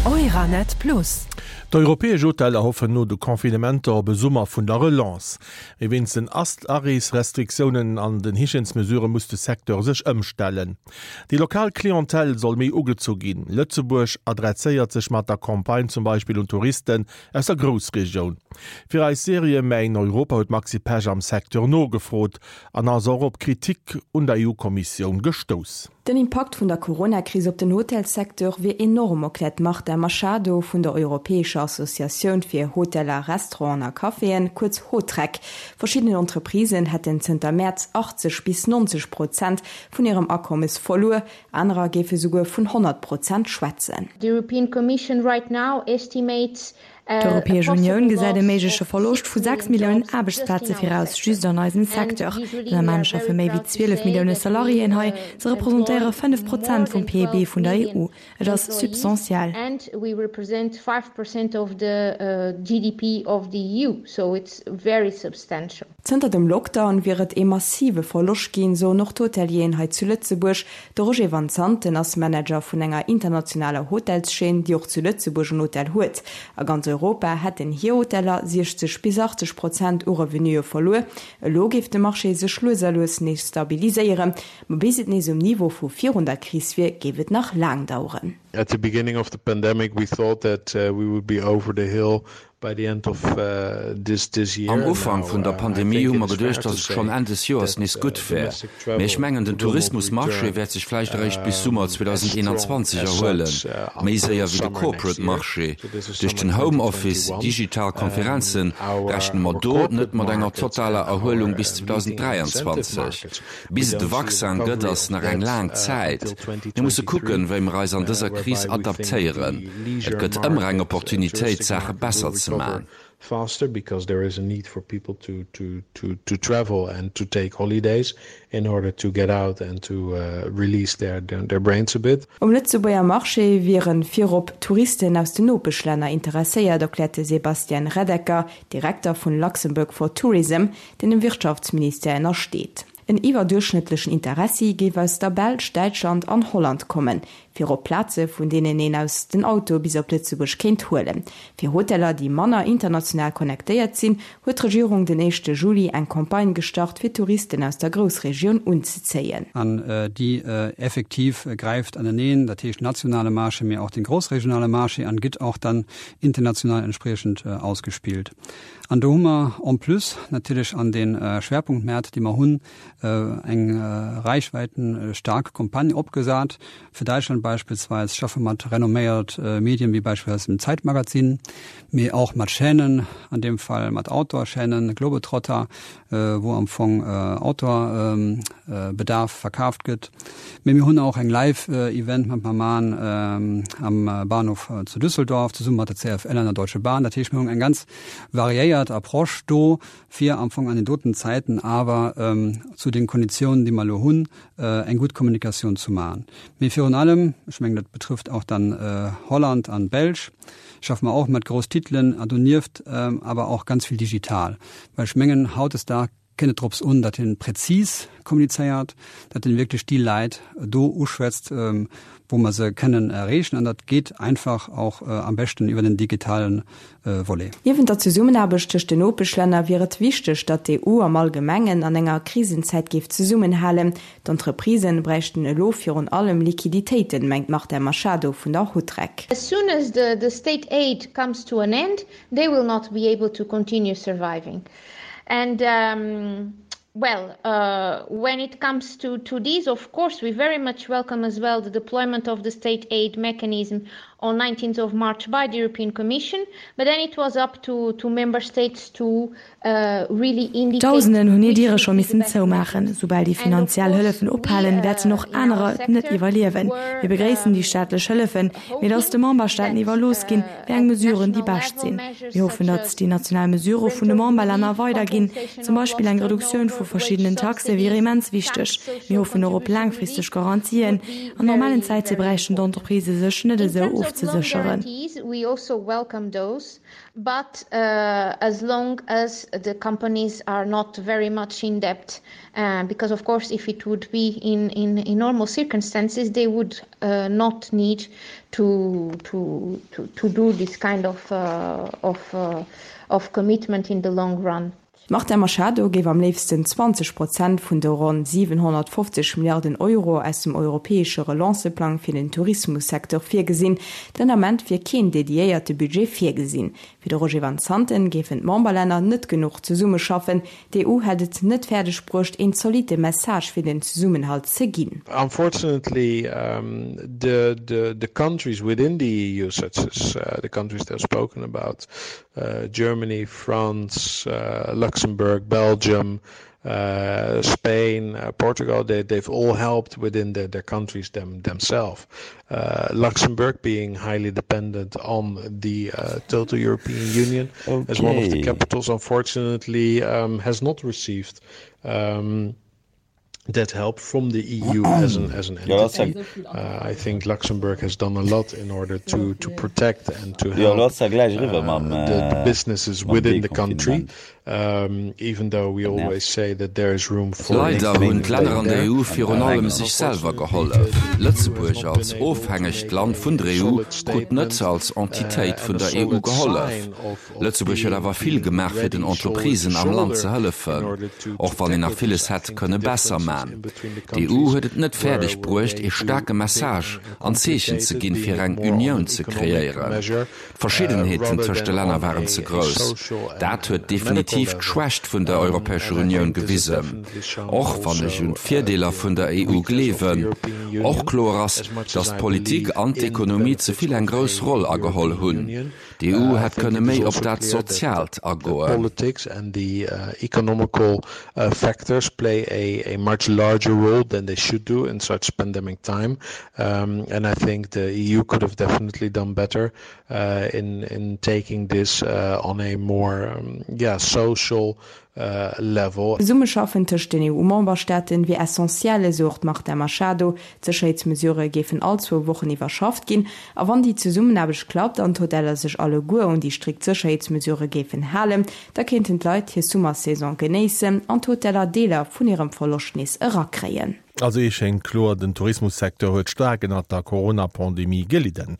Euranet Plus. D'europäesch Hoteller hoffen no de Confinementer op e Summer vun der Relance. Mee wéinst den Areesrestriktiounen an den Hygiènesmesurë muss de Secteur sech ëmstellen. Déi lokal Clientèle soll méi ugezu ginn. Lëtzebuerg adresséiert sech mat der Campagne zum Beispill un Touristen aus der Groussregioun. Fir eis Serie Mäin Europa huet d'Maxi Pesch am Secteur nogefrot an ass och op Kritik un der EU-Kommissioun gestouss. Den Impakt vun der Coronakris op den Hotelssecteur wier enorm, erkläert d'Marta Machado vun der europäescher Associatioun fir Hoteller, Restauranten a Caféen, kuerz Hotrec. Verschiddenen Entreprisen hätten zënter Mäerz 80 bis 90 Prozent vun hirem Akommes verluer, anerer géife souguer vun 100 Prozent schwätzen. The European Commission right now estimates D'Europäesch Unioun gesäit e méigleche Verloscht vu 6 Milliounen Aarbechtsplaze viraus, just an eisem Secteur. Den Ament schaffe méi wéi 12 Millioune Salariéen hei, se representéiere 5 Prozent vum PIB vun der EU. Et ass substantiell. Zënter dem Lockdown wier et ee massive Verloscht ginn, soen och d'Hotelieren hei zu Lëtzebuerg. De Roger Van Zanten ass Manager vun enger internationaler Hotelschaîne, déi och zu Lëtzebuerg en Hotel huet. A ganz Europa hätten hir Hoteller 60 bis 80 Prozent u Revenuë verluer. Elo géif de Marché sech lues a lues nees stabiliséieren, ma bis et nees um Niveau vu virun der Kris wier, géif et nach laang daueren. At the beginning of the pandemic we thought that we would be over the hill By the end of this this year. Am Ufank vun der Pandemie hu mer geduecht, datt et schonn Enn des Joers nees gutt wär. Mee ech mengen, den Tourismusmarché wäert sech vläicht eréischt bis Summer 2021 erhuelen, méi séier wéi de Corporate Marché. Duerch den Homeoffice, digital Konferenzen, rechne mer do net mat enger totaler Erhuelung bis 2023. Bis et e Vaccin gëtt, ass nach eng laang Zäit. Mir musse kucken, wéi mer eis an dëser Kris adaptéieren. Et gëtt ëmmer eng Opportunitéit, Saache besser ze man. Um Lëtzebuerger Marché wiere virop Touristen aus den Nopeschlänner interesséiert, erkläert de Sebastian Reddecker, Direkter vun Luxembourg for Tourism, deen dem Wirtschaftsministère ënnersteet. En iwwerduerchschnëttlechen Interessi géif aus der Belsch, Däitschland an Holland kommen, virop Plaze vun deenen een aus den Auto bis op Lëtzebuerg kéint huelen. Fir Hoteller, déi manner international connectéiert sinn, huet d'Regierung den éischte Juli eng Campagne gestart, fir Touristen aus der Groussregioun unzezéien. An déi effektiv gräift aneneen, dat heescht nationale Marché, mee och den groussregionale Marché an gëtt och dann international entspriechend ausgespillt. An do hu mer en plus natierlech an de Schwerpunktmäert, déi mer hunn, eng reichweitenstaark Campagne opgesat. Fir Däitschland beispillsweis schaffe mer mat renomméiert Medien, wéi beispillsweis dem Zeitmagazin, mee och mat Chaînen, an deem Fall mat Outdoor-Chaînen, Globetrotter, wou am Fong Outdoor-Bedarf verkaaft gëtt. Mee mir hunn och eng Live-Event mat mer man am Bahnhof zu Düsseldorf, zesumme mat der CFL an der Deutsche Bahn. Dat heescht, mir hunn eng ganz variéiert Approche do, fir am Fong an den doten Zäiten awer zu den Konditiounen, déi mer elo hunn, eng gutt Kommunikatioun zu maachen. Mee virun allem, ech mengen, dat betrëfft och dann Holland an d'Belsch, schaffe mer och mat grouss Titelen a donieft awer och ganz vill digital, well ech mengen, hautdesdaags kënnt et drops un, datt een präzis kommunizéiert, datt een wierklech déi Leit do uschwätzt, wou mer se kënnen erreechen an dat geet einfach och am beschten iwwer den digitalen Volet. Niewent der Zesummenaarbecht tëscht den Nopeschlänner wier et wichteg, datt d'EU am Allgemengen an enger Krisenzäit géif zesummenhalen. D'Entreprisen bräichten elo virun allem Liquiditéiten, mengt d'Marta Machado vun der Hotrec. As soon as the state aid comes to an end, they will not be able to continue surviving. And well, when it comes to to this, of course, we very much welcome as well the deployment of the state aid mechanism on 19th of March by the European Commission, but then it was up to to member states to really indicate Dausenden hunn hir Diere scho missen zoumaachen. Soubal déi finanziell Hëllefen ophalen, wäerten och anerer et net iwwerliewen. Mir begréissen déi staatlech Hëllefen, mee et ass de Memberstaaten iwwerlooss ginn, wéi eng Mesuren déi bescht sinn. Mir hoffen, datt déi national Mesurë vun de Memberlänner weiderginn, zum Beispill eng Reduktioun vun. vu verschiddenen Taxe wier immens wichteg. Mir hoffen och op laangfristeg Garantien. An normalen Zäite bräichten d'Entreprisë sech net esou ofzesécheren. But as long as the companies are not very much in debt, because of course if it would be in in normal circumstances they would not need to to to do this kind of of of commitment in the long run. D'Marta Machado géif am léifsten 20 Prozent vun de ronn 750 Milliarden Euro aus dem europäesche Relanceplang fir den Tourismussecteur virgesinn. Den Ament wier keen dediéierte Budget virgesinn. Fir de Roger Van Zanten géifen d'Memberlänner net genuch zesummeschaffen. D'EU hätt et net fäerdeg bruecht, een zolitte Message fir den Zesummenhalt ze ginn. Unfortunately, the the countries within the EU, such as the countries that I've spoken about, uh, Germany, France, uh, Luxembourg, Belgium, uh, Spain, uh, Portugal, they, they've all helped within their, their countries them, themselves. Uh, Luxembourg being highly dependent on the uh, total European Union okay. as one of the capitals, unfortunately, um, has not received um, that help from the EU as an as an entity. Uh, I think Luxembourg has done a lot in order to to protect and to help uh, the, the businesses within the country. Um, even though we always say that there is room for Leider hunn d'Länner an der EU virun allem sech selwer gehollef. Lëtzebuerg als ofhängegt Land vun der EU krut net als Entitéit vun der EU gehollef. Lëtzebuerg huet awer vill gemaach fir den Entreprisen am Land ze hëllefen, och wann een nach villes hätt kënne besser man. D'EU huet et net fäerdeg bruecht ee staarke Message an Zeechen ze ginn fir eng Unioun ze kreéieren. D'Verschiddenheeten tëscht de Länner waren ze grouss. Dat huet definitiv d'Schwächt vun der Europäescher Unioun gewisen, och wann ech un d'Virdeeler vun der EU gleewen. Och kloer ass, datt d'Politik an d'Ekonomie ze vill eng grouss Roll ageholl hunn. D'EU hätt kënne méi op dat Soziaalt agoen. Politics and the economical factors play a much larger role than they should do in such pandemic time and I think the EU could have definitely done better in in taking this on a more yeah social level. D'Zesummeschaffen tëscht den EU-Memberstaaten wier essentiell, esou och d'Marta Machado. D'Sécherheetsmesurë géifen all zwou Wochen iwwerschafft ginn. A wann déi Zesummenaarbecht klappt an d'Hoteller sech alleguer un déi strikt Sécherheetsmesurë géifen halen, da kéinten d'Leit hir Summersaison genéissen an d'Hoteller Deeler vun hirem Verloscht nees erakréien. Also ee schéngt kloer, den Tourismussecteur huet staark ënnert der Corona-Pandemie gelidden.